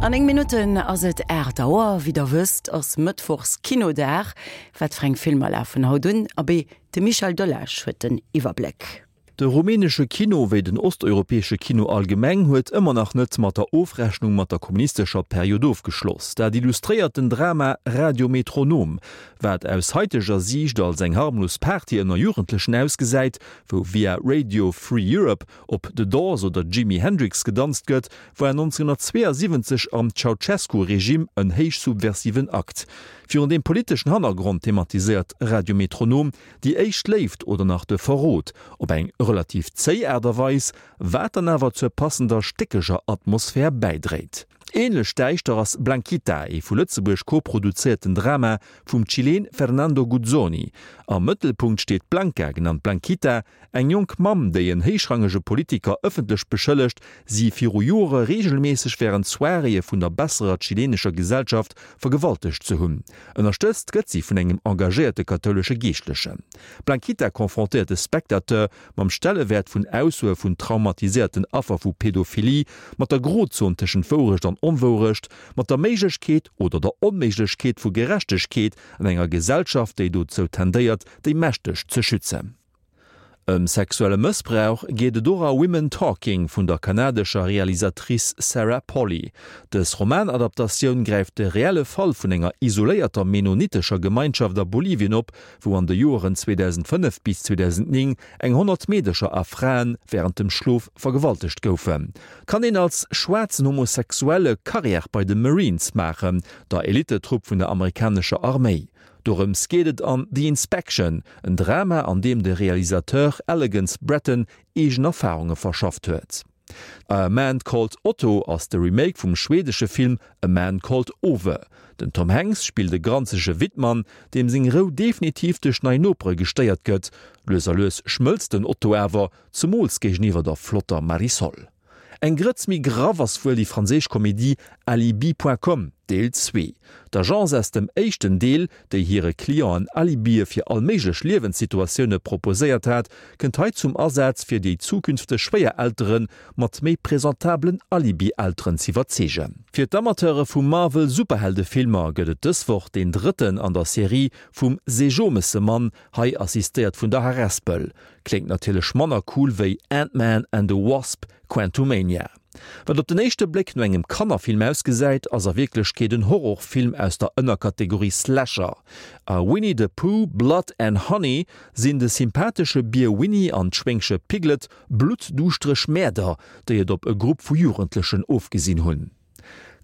An 9 Minutten ass et 8 Auer. Wéi der wësst, ass Mëttwochs Kinodag. Wat fir eng Filmer lafen haut un? Abee, de Michel Delage huet den Iwwerbléck. De rumänesche Kino, wéi den osteuropäesche Kino allgemeng, huet ëmmer nach net mat der Ofrechnung mat der kommunistescher Period ofgeschloss. Dat illustréiert den Drama Radio Metronom, wat aus haiteger Siicht als eng harmlos Party ënner Jugendlechen ausgesäit, wou via Radio Free Europe op The Doors oder Jimi Hendrix gedanzt gëtt, war 1972 am Ceaucescu-Regime en héich subversiven Akt. Virun deem politeschen Hannergrond thematiséiert Radio Metronom déi éischt Léift oder nach de Verrot op eng relativ zéi Aart a Weis, wat dann awer zur passender stéckeger Atmosphär bäidréit. Ähnlech däischter ass Blanquita, ee vu Lëtzebuerg koproduzéierten Drama vum Chileen Fernando Guzzoni. Am Mëttelpunkt steet d'Blanca, genannt Blanquita, Eng jonk Mamm, déi en héichrangege Politiker ëffentlech beschëllegt, si viru Jore reegelméisseg wärend Soiréeë vun der besserer chilenescher Gesellschaft vergewaltegt ze hunn. Ënnerstëtzt gëtt si vun engem engagéierte kathoulesche Geeschtlechen. D'Blanquita confrontéiert de Spectateur mam Stellewäert vun Aussoe vun traumatiséierten Affer vu Pedophilie, mat der Grozon tëschent Wourecht an Onwourecht, mat der Méiglechkeet oder der Onméiglechkeet vu Gerechtegkeet an enger Gesellschaft, déi dozou tendéiert, déi Mächteg ze schützen. Ëm sexuelle Mëssbrauch geet et och a Women Talking vun der kanadescher Realisatrice Sarah Polley. Dës Romanadaptatioun gräift de reelle Fall vun enger isoléierter mennonitescher Gemeinschaft a Bolivien op, wou an de Joeren 2005 bis 2009 eng 100 Meedercher a Frae wärend dem Schlof vergewaltegt goufen. Kann een als schwaarzen Homosexuelle Karriär bei de Marines maachen, der Elittetrupp vun der amerikanescher Arméi? Dorëms geet et an The Inspection, en Drama an deem de Realisateur Elegance Bratton eegen Erfarunge verschafft huet. A Man Called Otto ass de Remake vum schweedesche Film A Man Called Ove. Den Tom Hanks spillt e granzege Wittmann, deem seng Rou definitiv duerch nei Nopere gestéiert gëtt. Lues a lues schmëlzt den Otto awer, zemools géigeniwwer der flotter Marisol. Eng Grëtz méi graff ass wuel déi franséisch Komedie Alibi Point Com, Deel 2. D'Agence aus dem éischten Deel, déi hire Clienten Alibie fir all méiglech Liewenssituatioune proposéiert hat, kënnt hei zum Asaz, fir déi zukünfteg Schwéiereltere mat méi presentabelen Alibi-Elteren z'iwwerzeegen. Fir d'Amateure vu Marvel-Superheldefilmer gëtt et dës Woch deen drëtten an der Serie vum Seejomessemann, hei assistéiert vun der Harespel. Kléngt natierlech manner cool wéi Ant-Man and the Wasp, Quantumania. Wat op den éischte Bléck no engem Kannerfilm ausgesäit, ass a Wierklechkeet en Horrorfilm aus der Ënnerkategorie Slasher. A Winnie the Pooh, Blood and Honey sinn de sympathesche Bier Winnie an d'Schwéngche Piglet bluttduuschtereg Mäerder, déi et op e Grupp vu Jugendlechen ofgesinn hunn.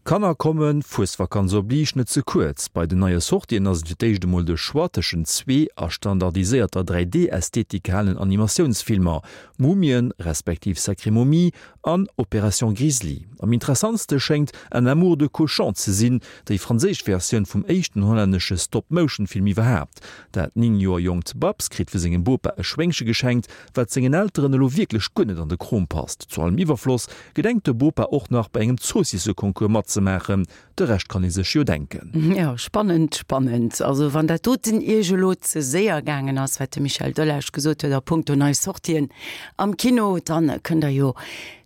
Kanner kommen, Fuesvakanz oblige, net ze kuerz. Bei den neie Sortien ass et fir d'éischt emol de Choix tëschent zwee a standardiséierter 3D-Ästhetik gehalenen Animatiounsfilmer, Mumien, respektiv Sacrée Momie an Opération Grizzly. Am interessantste schéngt Un amour de cochon ze sinn, déi franséisch Versioun vum éischten hollännesche Stop-Motion-Film iwwerhaapt. Dat 9 Joer jonkt Babs kritt vu sengem Bopa e Schwéngche geschenkt, wat sengen Elteren elo wierklech guer net an de Krom passt. Zu allem Iwwerfloss gedenkt de Bopa och nach bei engem Zoossisseconcours matzemaachen. De Rescht kann ee sech jo denken. Jo, spannend, spannend. Also wann dat doten Iech elo ze séier gaangen ass, wat de Michel Delage gesot huet a punkto nei Sortien am Kino, dann kënnt der jo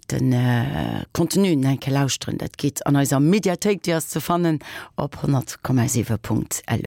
de Contenu nach eng Kéier lauschteren. Dat geet an eiser Mediathéik, déi ass ze fannen op 100,7.lu.